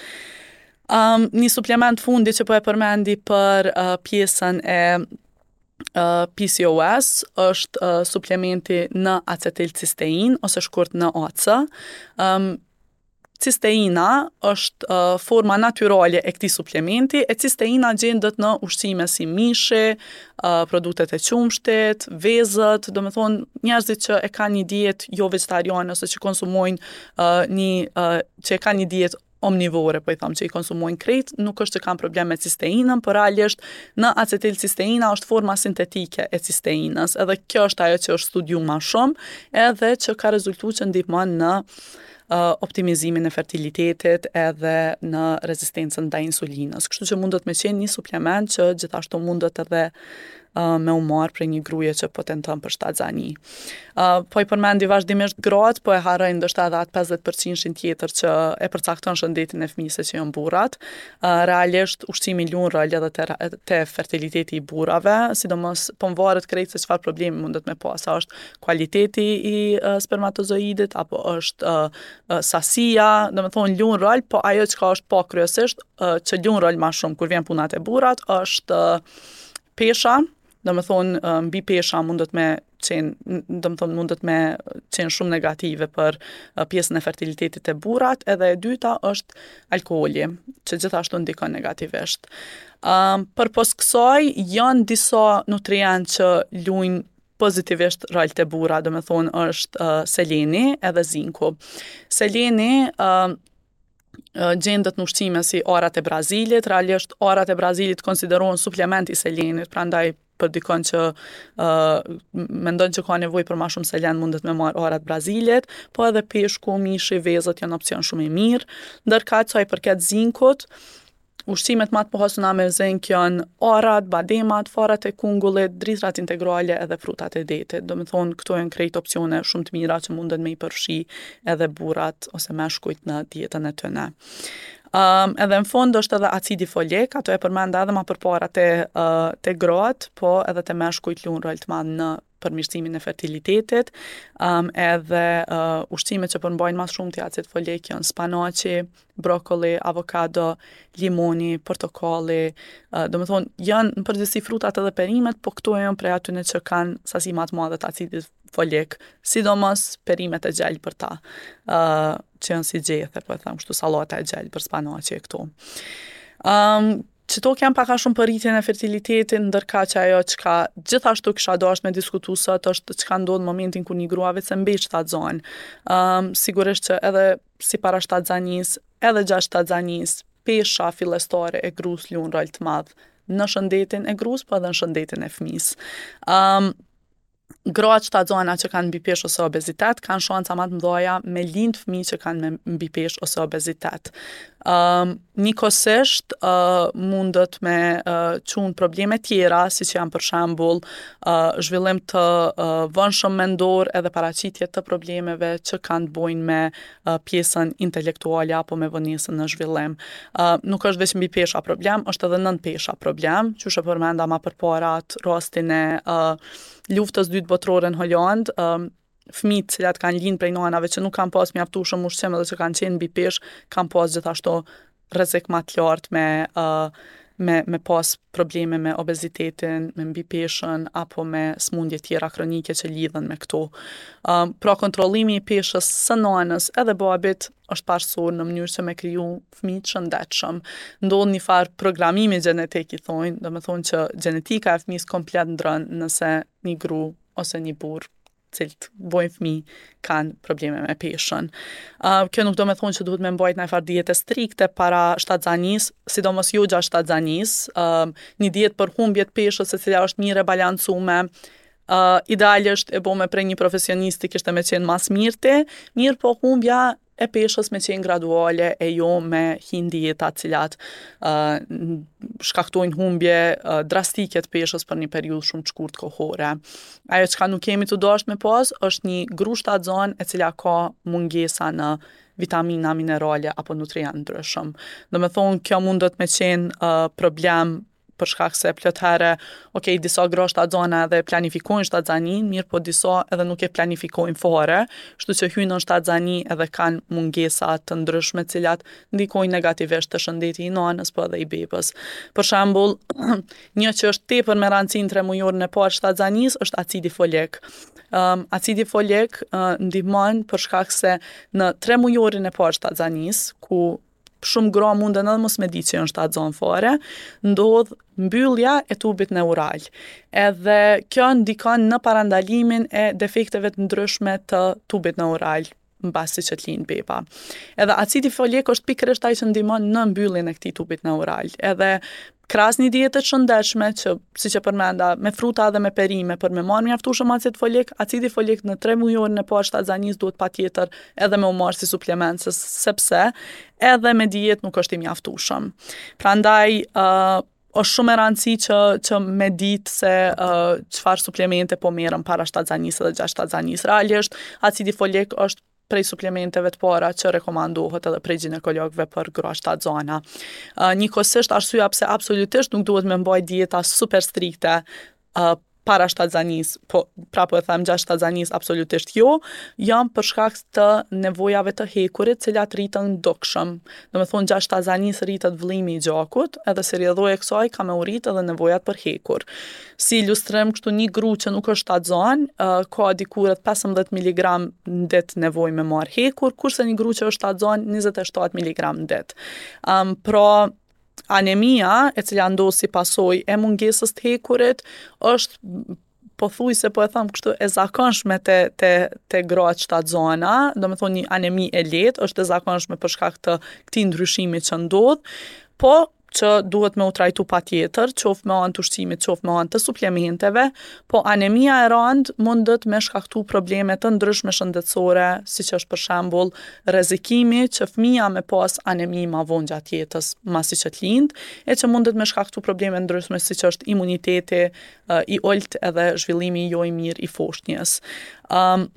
Um, një suplement fundi që po e përmendi për uh, pjesën e uh, PCOS është uh, suplementi N-acetilcistein ose shkurt NAC. Um, Cisteina është uh, forma natyrale e këtij suplementi, e cisteina gjendet në ushqime si mishi, uh, produktet e qumështit, vezët, domethonë njerëzit që e kanë një dietë jo vegetariane ose që konsumojnë uh, një uh, që e kanë një dietë omnivore, po i tham që i konsumojnë krejt, nuk është që kanë problem me cisteinën, por realisht N-acetilcisteina është forma sintetike e cisteinës, edhe kjo është ajo që është studiu ma shumë, edhe që ka rezultu që ndihmon në optimizimin e fertilitetit edhe në rezistencën ndaj insulinës. Kështu që mundet me qenë një suplement që gjithashtu mundet edhe uh, me u marrë prej një gruje që po tenton për shtatzani. Uh, po i përmendi vazhdimisht gratë, po e harroj ndoshta edhe atë 50%-shin tjetër që e përcakton shëndetin e fëmijës që janë burrat. Uh, realisht ushqimi luan rol edhe te, te fertiliteti i burrave, sidomos po mvaret krejt se çfarë problemi mundet me pas, a është kualiteti i spermatozoidit apo është sasia, domethonë luan rol, po ajo çka është pa kryesisht që luan rol ma shumë kur vjen puna te burrat është pesha, domethonë mbipesha mundet me qenë, domethonë mundet me qenë shumë negative për pjesën e fertilitetit te burrat, edhe e dyta është alkooli, që gjithashtu ndikon negativisht. Um, përpos kësaj, janë disa nutrientë që luajnë pozitivisht rol te burra, domethonë është uh, seleni edhe zinku. Seleni uh, gjendet në ushqime si arrat e Brazilit, realisht arrat e Brazilit konsiderohen suplement i selenit, prandaj për dikon që uh, mendon që ka nevojë për ma shumë selen mundet me marrë arrat e Brazilit, po edhe peshku, mishi, vezët janë opcion shumë i mirë. Ndërkaq sa i përket zinkut, Ushqimet ma të pasuna me zink janë arrat, bademat, farat e kungullit, drithërat integrale edhe frutat e detit. Domethonë, këto janë krejt opcione shumë të mira që munden me i përfshi edhe burrat ose meshkujt në dietën e tyne. Um, edhe në fund është edhe acidi folik, ato e përmenda edhe ma përpara te, uh, te gratë, po edhe te meshkujt luan rol të madh në përmirësimin e fertilitetit, um, edhe uh, ushqimet që përmbajnë ma shumti acid folik janë spanaqi, brokoli, avokado, limoni, portokalli, uh, domethonë, janë në përgjithësi frutat edhe perimet, po këto janë prej atyne që kanë sasi ma të madhe të acidit folik, sidomos perimet e gjelbërta, uh, që janë si gjethe, po e them kështu sallata e gjelbër, spanaqi e këto. Um, Qëto janë pak a shumë për rritjen e fertilitetit, ndërkaq ajo çka gjithashtu kisha dashtë me diskutu sot është çka ndodh në momentin kur një grua veç se mbet shtatzonë. Um, sigurisht që edhe si para shtatzanisë, edhe gjatë shtatzanisë, pesha fillestare e grus luan rol të madh në shëndetin e grus, po edhe në shëndetin e fëmisë. Um, gratë shtatzana që kanë mbipeshë ose obezitet kanë shansa ma të mëdha me lind fëmijë që kanë me mbipeshë ose obezitet. Um, njëkohësisht uh, mundet me uh, çu n'probleme tjera, siç janë për shembull uh, zhvillim të uh, vonshëm mendor edhe paraqitje të problemeve që kanë të bojnë me uh, pjesën intelektuale apo me vonesën në zhvillim. Uh, nuk është veç mbipesha problem, është edhe nënpesha problem, qysh e përmenda ma përpara atë rastin e uh, luftës dytë botërore në Holandë, uh, fëmijët të cilat kanë lind prej nanave që nuk kanë pas mjaftueshëm ushqim edhe që kanë qenë mbi peshë, kanë pas gjithashtu rrezik ma të lartë me uh, me me pas probleme me obezitetin, me mbipeshën apo me sëmundje tjera kronike që lidhen me këto. Um, pra kontrollimi i peshës së nanës edhe babit është parësor në mënyrë që me kriju fëmijë të shëndetshëm. Ndodh një farë programimi gjenetik i thonë, domethonë që gjenetika e fëmijës komplet ndron nëse një gru ose një burrë cilët bojnë fëmijë kanë probleme me peshën. Uh, kjo nuk do me thonë që duhet me mbajt najfarë diete strikte para shtatzanisë, sidomos jo gjatë shtatzanisë, uh, një dietë për humbje të peshës e cila është mirë e balancume, uh, idealisht e bome prej një profesionisti kishte me qenë ma s'mirti, mirëpo humbja e peshës me qenë graduale e jo me hi n'dieta cilat uh, shkaktojnë humbje uh, drastike të peshës për një periudhë shumë të shkurt kohore. Ajo çka nuk kemi të dashtë me pas është një gru shtatzonë e cila ka mungesa në vitamina, minerale apo nutrient ndryshëm. Domethonë, kjo mundet me qenë uh, problem për shkak se plot herë, ok, disa gra shtatzana edhe planifikojnë shtatzaninë, mirëpo disa edhe nuk e planifikojnë fare, kështu që hyjnë në shtatzani edhe kanë mungesa të ndryshme të cilat ndikojnë negativisht te shëndeti i nanës, po edhe i bebës. Për shembull, një që është tepër me rëndësi në tremujorin e parë shtatzanisë është acidi folik. Um, acidi folik uh, ndihmon për shkak se në tremujorin e parë shtatzanisë, ku shumë gra munden edhe mos me di që janë shtatzonë fare, ndodh mbyllja e tubit neural. Edhe kjo ndikon në parandalimin e defekteve të ndryshme të tubit neural mbasi që të lind beba. Edhe acidi folik është pikërisht ai që ndihmon në mbylljen e këtij tubit neural. Edhe krahas një diete të shëndetshme që siç e përmenda me fruta dhe me perime për me marrë mjaftueshëm acid folik, acidi folik në tremujorin e parë shtatzanisë duhet patjetër edhe me u marrë si suplement sepse edhe me dietë nuk është i mjaftueshëm. Prandaj uh, është shumë e rëndësi që që me ditë se uh, çfarë suplemente po merren para shtatzanisë dhe gjatë shtatzanisë. Realisht acidi folik është prej suplementeve të para që rekomandohet edhe prej gjinekologëve për gra shtatzana. Uh, njëkohësisht arsyeja pse absolutisht nuk duhet me mbajt dieta super strikte uh, para shtatzanisë, po prapë e them gjatë shtatzanisë absolutisht jo, janë për shkak të nevojave të hekurit, cilat rriten dukshëm. Domethonë gjatë shtatzanisë rritet vëllimi i gjakut, edhe si rrjedhojë e kësaj ka me u rrit edhe nevojat për hekur. Si ilustrim, kështu një gru që nuk është shtatzanë, uh, ka diku rreth 15 mg në ditë nevojë me marr hekur, kurse një gru që është shtatzanë 27 mg në ditë. Um, pra, anemia, e cila ndodh si pasojë e mungesës të hekurit, është pothuajse po e them kështu e zakonshme te te te gratë shtatzana, domethonë një anemi e lehtë është e zakonshme për shkak të këtij ndryshimi që ndodh, po që duhet me u trajtu patjetër, qoftë me anë të ushqimit, qoftë me anë të suplementeve, po anemia e randë mundet me shkaktu probleme të ndryshme shëndetësore, siç është për shembull rrezikimi që fëmija me pas anemi ma vonë gjatë jetës, masi që të lind, e që mundet me shkaktu probleme ndryshme siç është imuniteti i ulët edhe zhvillimi jo i mirë i foshnjës. Um,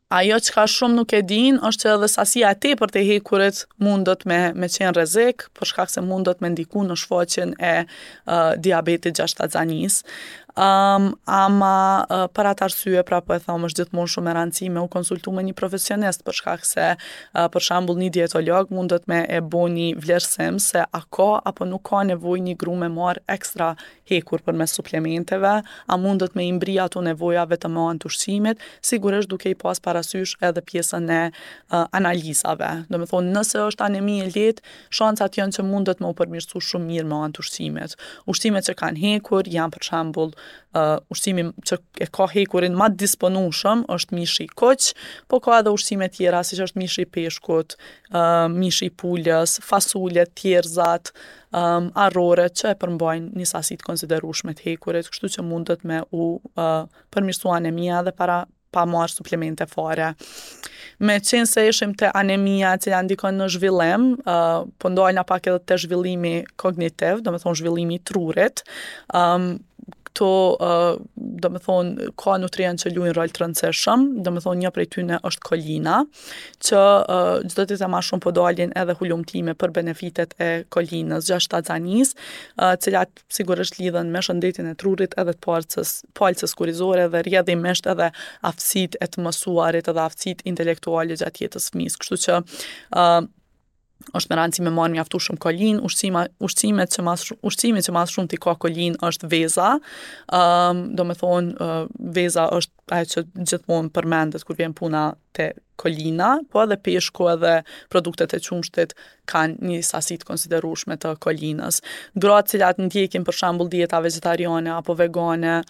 ajo çka shumë nuk e dinë është që edhe sasia e tepërt e hekurit mundet me me qenë rrezik, për shkak se mundet me ndiku në shfaqjen e uh, diabetit gjatë shtatzanisë. Um, ama uh, për atë arsye, pra po e them, është gjithmonë shumë me rëndësi me u konsultu me një profesionist, për shkak se uh, për shembull një dietolog mundet me e bo një vlerësim se a ka apo nuk ka nevojë një gru me marr ekstra hekur përmes suplementeve, a mundet me i mbri ato nevoja vetëm me anë të ushqimit, sigurisht duke i pas parasysh edhe pjesën e uh, analizave. Domethonë, nëse është anemi e lehtë, shancat janë që mundet me u përmirësu shumë mirë me anë të ushqimit. Ushqimet që kanë hekur janë për shembull uh, ushqimi që e ka hekurin ma të disponueshëm është mishi i kuq, po ka edhe ushqime tjera siç është mishi i peshkut, uh, mishi i pulës, fasulet, thjerrëzat, um, arroret që e përmbajnë një sasi të konsiderueshme të hekurit, kështu që mundet me u uh, përmirësu anemia edhe para pa marrë suplemente fare. Me qenë se ishim te anemia e cila ndikon në zhvillim, uh, po ndalna pak edhe te zhvillimi kognitiv, domethonë zhvillimi i trurit, um, këto, uh, domethonë, ka nutrient që luajnë rol të rëndësishëm, domethonë një prej tyne është kolina, që uh, çdo ditë e ma shumë po dalin edhe hulumtime për benefitet e kolinës gjatë shtatzanisë, uh, cilat sigurisht lidhen me shëndetin e trurit edhe të palcës, palcës kurrizore dhe rrjedhimisht edhe aftësitë e të mësuarit edhe aftësitë intelektuale gjatë jetës fëmijës. Kështu që uh, është me rëndësi me marrë mjaftueshëm kolinë, ushqima, ushqimet që mas, ushqimi që ma s'shumti ka kolinë është veza, um, domethonë, uh, veza është ajo që gjithmonë përmendet kur vjen puna te kolina, po edhe peshku edhe produktet e qumështit kanë një sasi të konsiderueshme të kolinës. Gratë cilat ndjekin për shembull dieta vegetariane apo vegane,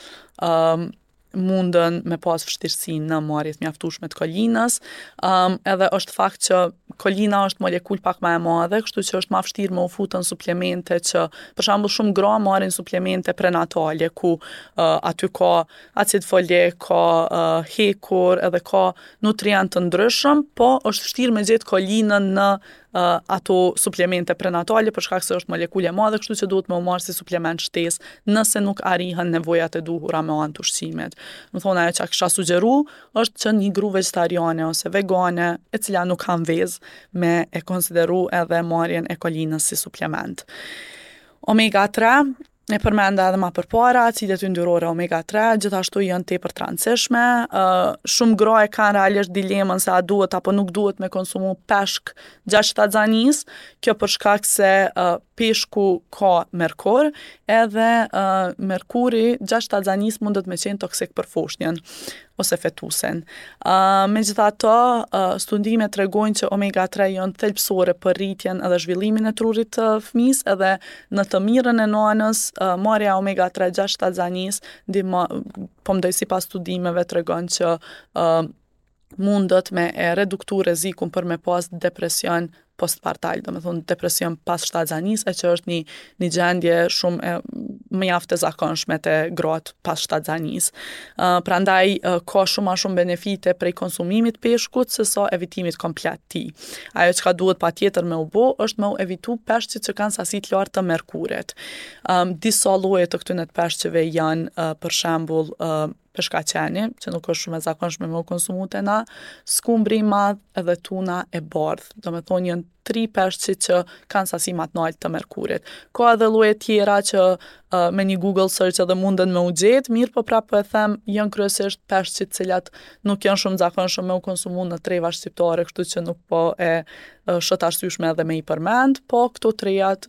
um, mundën me pas vështirësi në marrje të mjaftueshme të kolinës. Um, edhe është fakt që kolina është molekulë pak ma e madhe, kështu që është ma vështirë me u fut në suplemente që, për shembull, shumë gra marrin suplemente prenatale ku uh, aty ka acid folik, ka uh, hekur, edhe ka nutrient të ndryshëm, po është vështirë me gjetë kolinën në uh, ato suplemente prenatale për shkak se është molekulë e madhe, kështu që duhet me u marrë si suplement shtesë nëse nuk arrihen nevojat e duhura me anë të ushqimit. Domethonë ajo që kisha sugjeru është që një gru vegetariane ose vegane, e cila nuk han vezë, me e konsideru edhe marrjen e kolinës si suplement. Omega 3 E përmenda edhe ma përpara, acidet yndyrore omega 3 gjithashtu janë tepër të rëndësishme. Uh, shumë gra e kanë realisht dilemën se a duhet apo nuk duhet me konsumu peshk gjatë shtatzanisë. Kjo për shkak se uh, peshku ka merkur, edhe uh, merkuri gjatë shtatzanisë mundet me qenë toksik për foshnjën ose fetusin. Uh, megjithatë, uh, studimet tregojnë që omega 3 janë thelbësore për rritjen edhe zhvillimin e trurit të fëmisë, edhe në të mirën e nënës, uh, marrja e omega 3 gjatë shtatzanisë, ndihmo, po mendoj sipas studimeve tregon që uh, mundet me e reduktu rrezikun për me pas depresion postpartal, domethonë depresion pas shtatzanisë, e që është një, një gjendje shumë e mjaft e zakonshme te gratë pas shtatzanisë. Uh, prandaj uh, ka shumë ma shumë benefite prej konsumimit peshkut se sa evitimit komplet tij. Ajo çka duhet patjetër me u bo është me u evitu peshqit që kanë sasi të lartë të merkurit. Um, disa lloje të këtyne të peshqeve janë uh, për shembull uh, peshkaqeni, që nuk është shumë e zakonshme me u konsumu te na, skumbri i madh edhe tuna e bardhë. Domethonë janë tri peshqit që kanë sasi ma të naltë të merkurit. Ka edhe lloje tjera që uh, me një Google search edhe munden me u gjetë, mirëpo prapë po e them, janë kryesisht peshqit cilat nuk janë shumë zakonshëm me u konsumu në treva shqiptare, kështu që nuk po e uh, shoh të arsyeshme edhe me i përmend, po këto trejat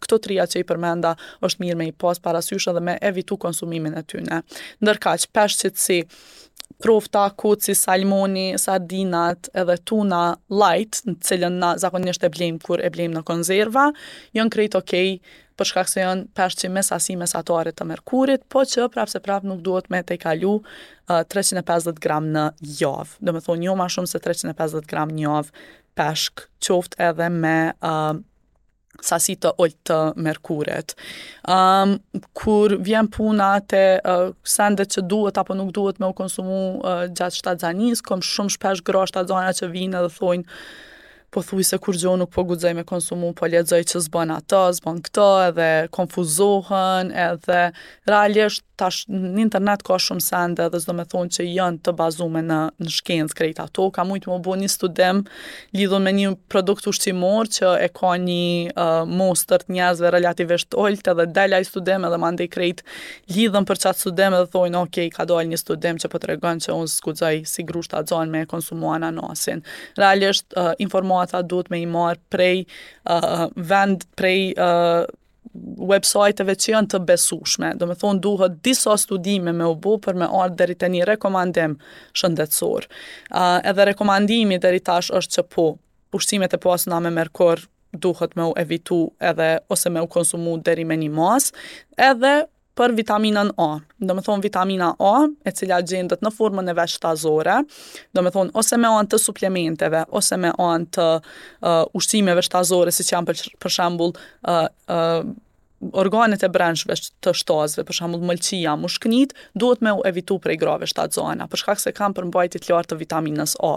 këto trija që i përmenda është mirë me i pas parasysh edhe me evitu konsumimin e tyne. Ndërkaq, peshqit si profta, koci, salmoni, sardinat edhe tuna light, në cilën na zakonisht e blejmë kur e blejmë në konzerva, janë krejt okej për shkak se janë peshqi me sasi mesatare të merkurit, po që prapë se prapë nuk duhet me tejkalu uh, 350 gram në javë. Domethonë, jo ma shumë se 350 gram në javë peshk, qoftë edhe me uh, sasi të ulët të merkurit. Um, kur vjen puna te uh, sendet që duhet apo nuk duhet me u konsumu uh, gjatë shtatzanisë, kom shumë shpesh gra shtatzana që vijnë edhe thojnë pothujse kurgjo nuk po guxoj me konsumu, po lexoj që s'bën ato, s'bën këto, edhe konfuzohen, edhe realisht. Tash në internet ka shumë sende dhe s'do me thonë që janë të bazume në, në shkencë krejt ato. Ka mujtë me u bo një studim lidhur me një produkt ushqimor që e ka një uh, mostër të njerëzve relativisht të ulët edhe del ai studim edhe mandej krejt lidhen për qatë studim edhe thojnë ok, ka dalë një studim që po tregon që unë s'guxoj si gru shtatzonë me konsumu ananasin. Realisht uh, informata duhet me i marrë prej uh, vend, prej uh, websajteve që janë të besueshme. Do me thonë duhet disa studime me u bo për me ardhë deri te një rekomandim shëndetësor. Uh, edhe rekomandimi deri tash është që po, ushqimet e pasuna me merkur duhet me u evitu edhe ose me u konsumu deri me një masë, edhe për vitaminën A. Do me thonë vitamina A, e cila gjendet në formën e vet shtazore, do me thonë ose me anë të suplementeve, ose me anë të uh, ushqimeve shtazore, siç janë për, për shembull uh, uh, organet e brendshme të shtazëve, për shembull mëlçia, mushknit, duhet me u evitu prej grave shtatzana, për shkak se kanë përmbajtje të lartë të vitaminës A.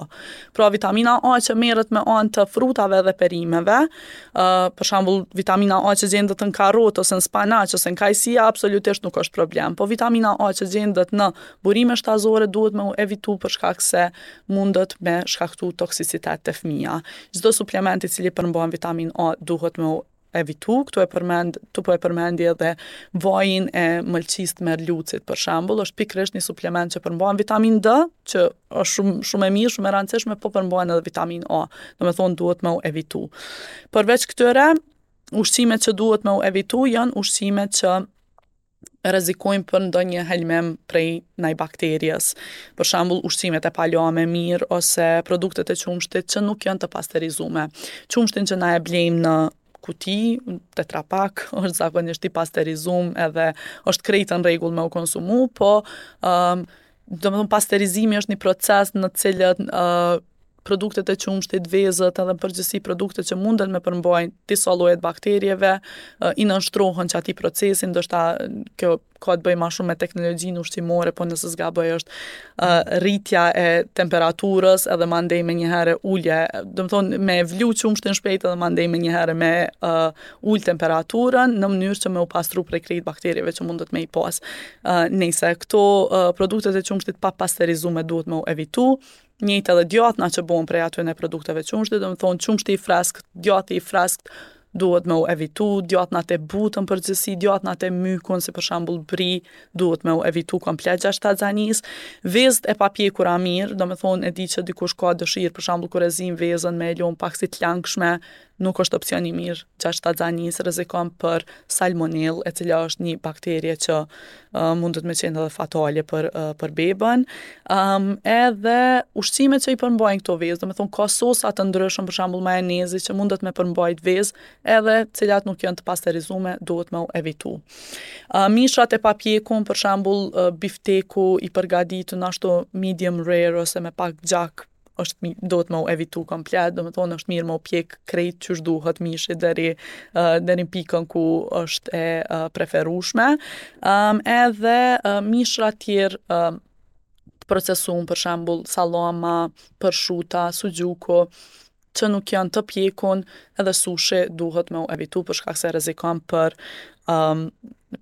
Pra vitamina A që merret me anë të frutave dhe perimeve, uh, për shembull vitamina A që gjendet në karot ose në spanaq ose në kajsia absolutisht nuk është problem. Po vitamina A që gjendet në burime shtazore duhet me u evitu për shkak se mundet me shkaktu toksicitet te fëmija. Çdo suplement i cili përmban vitaminë A duhet me u evitu, këtu e përmend, këtu po e përmendi edhe vajin e mëlçisë të merlucit për shembull, është pikërisht një suplement që përmban vitaminë D, që është shumë shumë e mirë, shumë e rëndësishme, po përmban edhe vitaminë A. Do me thonë duhet me u evitu. Përveç këtyre, ushqimet që duhet me u evitu janë ushqimet që rrezikojnë për ndonjë helmim prej naj bakterjes. Për shembull, ushqimet e palame mirë ose produktet e qumështit që nuk janë të pasterizume. Qumështin që na e blejmë në kuti, Tetra Pak, është zakonisht i pasterizum edhe është krejt në rregull me u konsumu, po um, domethonë pasterizimi është një proces në të cilët uh, produktet e qumështit, vezët edhe në përgjithësi produktet që munden me përmbajnë disa lloje të bakterieve, i nënshtrohen qatij procesi, ndoshta kjo ka të bëjë ma shumë me teknologjinë ushqimore, po nëse s'gaboj është uh, rritja e temperaturës edhe mandej menjëherë ulje, domethonë me vlu qumështin shpejt edhe mandej menjëherë me uh, ul temperaturën në mënyrë që me u pastru prej krejt bakterieve që mundet me i pas. Uh, nejse, këto uh, produktet e qumështit pa pasterizume duhet me u evitu, Njëjtë edhe djathna që bohen prej atyne produkteve qumështit, domethonë qumështi i freskët, djathi i freskët duhet me u evitu, djathnat e butë në përgjithësi, djathnat e mykun, si për shembull bri, duhet me u evitu komplet gjatë shtatzanisë. Vezët e papjekura mirë, domethonë e di që dikush ka dëshirë, për shembull kur e zin vezën me e lon pak si të langshme, nuk është opcion i mirë gjatë shtatzanisë, rrezikon për salmonellë, e cila është një bakterie që uh, mundet me qenë edhe fatale për uh, për bebën. Um, edhe ushqimet që i përmbajnë këto vezë, domethonë ka sosa të ndryshëm, për shembull majonezi që mundet me përmbajt vezë, edhe cilat nuk janë të pasterizume, duhet me u evitu. Uh, mishrat e papjekun, për shembull uh, bifteku i përgatitun ashtu medium rare ose me pak gjak është duhet me u evitu komplet, domethonë është mirë me u pjek krejt qysh duhet mishi deri uh, deri në pikën ku është e uh, preferueshme. Um, edhe uh, mishra tjerë uh, të procesum, për shembull sallama, përshuta, suxhuku, që nuk janë të pjekun, edhe sushi duhet me u evitu për shkak se rrezikon për um,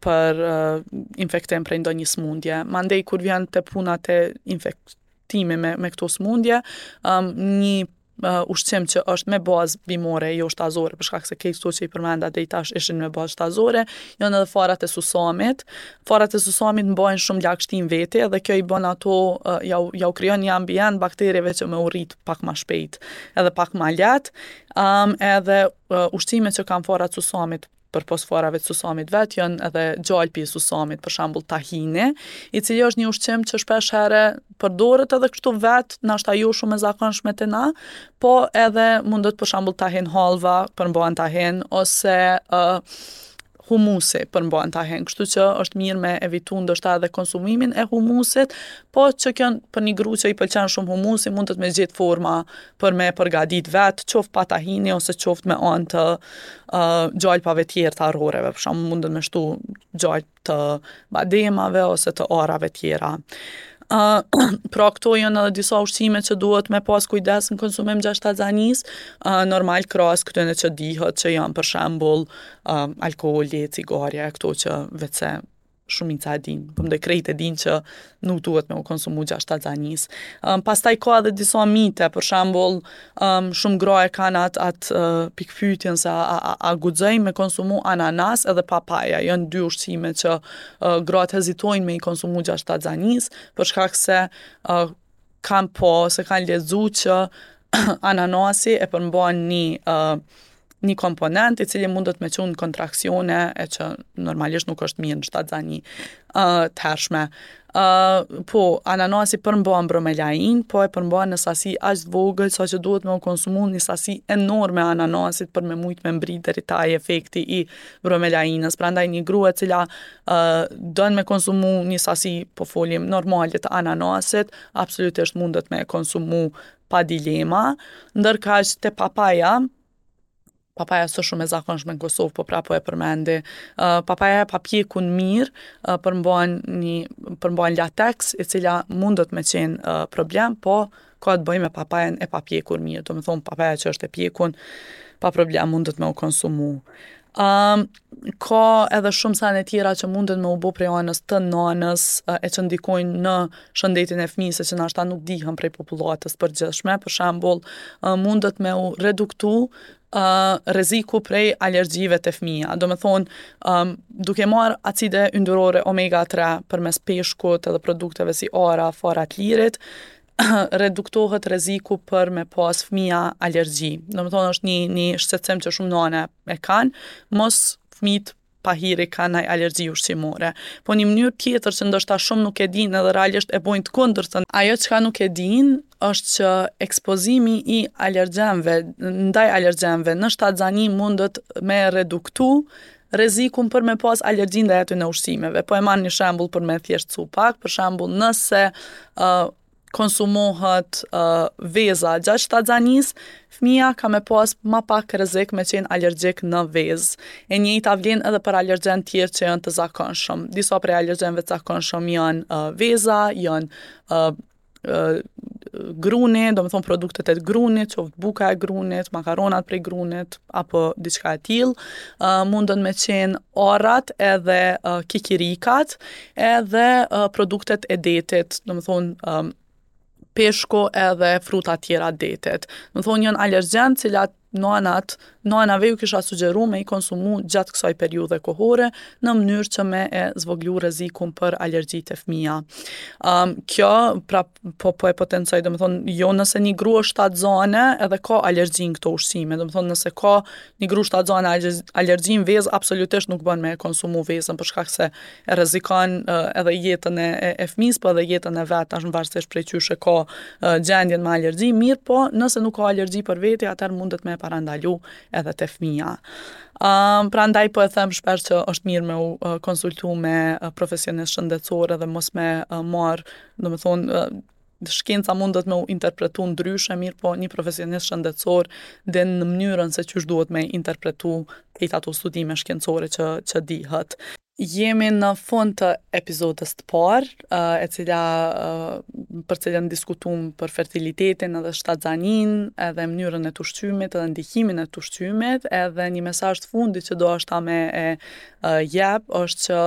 për uh, infektim prej ndonjë smundje. Mandej kur vjen te puna te infekt timi me, me këto smundje, um, një uh, ushqim që është me bazë bimore, jo shtazore, për shkak se krejt këto që i përmenda deri tash ishin me bazë shtazore, janë edhe farat e susamit. Farat e susamit mbajnë shumë lagështi në vete dhe kjo i bën ato, uh, jau, jau krijon një ambient bakterieve që me u rrit pak ma shpejt, edhe pak ma lehtë. Um, edhe uh, ushqimet që kanë farat susamit përpos farave të susamit vet, janë edhe gjalpi i susamit, për shembull tahini, i cili është një ushqim që shpesh herë përdoret edhe kështu vet, nashta jo shumë e zakonshme te na, po edhe mundet për shembull tahin hallva përmban tahin ose uh, humusi përmban tahin, kështu që është mirë me evitu ndoshta edhe konsumimin e humusit, po që kjo për një gru që i pëlqen shumë humusi, mundet me gjetë forma për me përgatit vetë, qoftë pa tahini ose qoftë me anë të uh, gjalpave tjerë të arroreve, për shembull mundet me shtu gjalp të bademave ose të arrave tjera. Uh, pra këto janë edhe disa ushqime që duhet me pas kujdes në konsumim gjatë shtatzanisë, uh, normal krahas këtyne që dihet që janë për shembull uh, alkooli, cigarja, këto që veçse. Shumica e dinë, po mendoj krejt e dinë që nuk duhet me u konsumu gjatë shtatzanisë. Um, pastaj ka edhe disa mite, për shembull, um, shumë gra e kanë atë at, uh, pikëpyetjen se a, a, a guxoj me konsumu ananas edhe papaja. Janë dy ushqime që uh, gratë hezitojnë me i konsumu gjatë shtatzanisë, për shkak se uh, kanë pa ose kanë lexu që ananasi e përmban një uh, një komponent i cili mundet me çu në kontraksione e që normalisht nuk është mirë në shtatzani uh, të hershme. Uh, po, ananasi përmban bromelain, po e përmban në sasi aq të vogël sa që duhet me u konsumu një sasi enorme ananasit për me mujt me mbri deri te ai efekti i bromelainës. Prandaj një grua e cila uh, don me konsumu një sasi, po folim, normale të ananasit, absolutisht mundet me konsumu pa dilema, ndërkaq te papaja, papaja s'është shumë e zakonshme në Kosovë, po prapë po e përmendi. Uh, papaja e papjekun mirë, uh, përmban një përmban lateks, e cila mundet me qenë uh, problem, po ka të bëjë me papajen e papjekur mirë, domethonë papaja që është e pjekun, pa problem mundet me u konsumu. Um, ka edhe shumë sene tjera që munden me u bo prej anës të nanës e që ndikojnë në shëndetin e fëmijës e që nashta nuk dihen prej popullatës përgjithshme. Për shembull, mundet me u reduktu uh, rreziku prej alergjive te fëmija. Domethonë, um, duke marrë acide yndyrore omega 3 përmes peshkut edhe produkteve si arra, fara të lirit, reduktohet rreziku për me pas fëmija alergji. Domethonë është një, një shqetësim që shumë nana e kanë, mos fëmijët pahiri kanë naj alergji ushqimore. Po një mënyrë tjetër që ndoshta shumë nuk e dinë edhe realisht e bojnë të kundërtën, ajo çka nuk e dinë është që ekspozimi i alergjenëve ndaj alergjenëve në shtatzani mundet me reduktu rrezikun për me pas alergji ndaj atyne ushqimeve. Po e marr një shembull për me thjeshtësu pak, për shembull nëse uh, konsumohet uh, veza gjatë shtatzanisë, fëmija ka me pas ma pak rrezik me qenë alergjik në vezë. E njëjta vlen edhe për alergjenë tjerë që janë të zakonshëm. Disa prej alergjenëve të zakonshëm janë uh, veza, janë uh, gruni, domethonë produktet e grunit, qoftë buka e grunit, makaronat prej grunit, apo diçka e tillë, uh, mundën me qenë arrat edhe uh, kikirikat, edhe uh, produktet e detit, domethonë um, peshku edhe fruta tjera detit. Domethonë janë alergjenë cilat nanat, nanave ju kisha sugjeru me i konsumu gjatë kësaj periudhe kohore në mënyrë që me e zvoglu rrezikun për alergji te fëmija. Um, kjo, pra, po, po e potencoj, domethonë, jo nëse një grua është shtatzane edhe ka alergji në këto ushqime, domethonë, nëse ka një grua shtatzane alergji në vezë, absolutisht nuk bën me e konsumu vezën, për shkak se e rrezikon edhe jetën e, e, e fëmijës, po edhe jetën e vet, tash varësisht prej qysh e ka gjendjen me alergji, mirëpo, nëse nuk ka alergji për veti, atëherë mundet me e parandalu edhe te fëmija. Um, prandaj po e them shpesh që është mirë me u uh, konsultu me uh, profesionist shëndetësor edhe mos me uh, marr, domethonë, uh, shkenca mundet me u interpretu ndryshe, mirëpo një profesionist shëndetësor din në mënyrën se qysh duhet me interpretu krejt ato studime shkencore që, që dihet. Jemi në fund të epizodës të parë, e cila për cilën diskutum për fertilitetin edhe shtatzaninë, edhe mënyrën e të ushqymit edhe ndikimin e të ushqymit, edhe një mesazh të fundit që do me e jep është që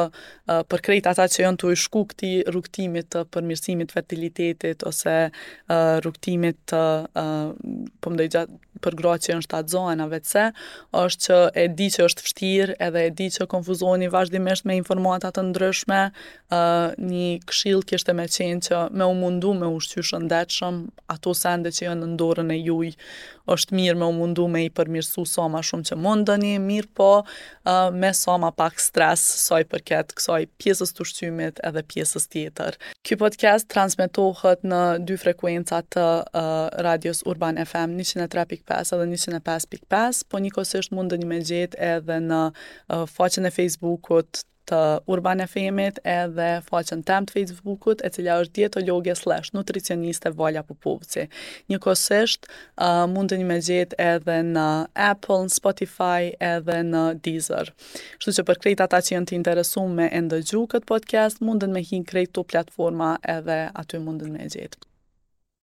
për krejt ata që janë tu i shku këtij rrugëtimit të përmirësimit fertilitetit ose rrugëtimit të po mendoj gjatë për gratë që janë shtatzëna veçse, është që e di që është vështirë edhe e di që konfuzoheni vazhdimisht me informata të ndryshme, uh, një këshill kishte me qenë që me u mundu me ushqy shëndetshëm, ato sende që janë në dorën e juj, është mirë me u mundu me i përmirësu sa ma shumë që mundeni, mirëpo uh, me sa ma pak stres sa i përket kësaj pjesës të ushqimit edhe pjesës tjetër. Ky podcast transmetohet në dy frekuenca të uh, radios Urban FM 103.5 edhe 105.5, po njëkohësisht mundeni me gjetë edhe në uh, faqen e Facebookut të Urban FM-it edhe faqen tem të Facebookut, e cila është dietologe slash nutricioniste Vala Popovci. Njëkohësisht, uh, mundeni me gjetë edhe në Apple, në Spotify edhe në Deezer. Kështu që për krejt ata që janë të interesuar me e ndëgju këtë podcast, munden me hi në krejt këto platforma edhe aty munden me e gjetë.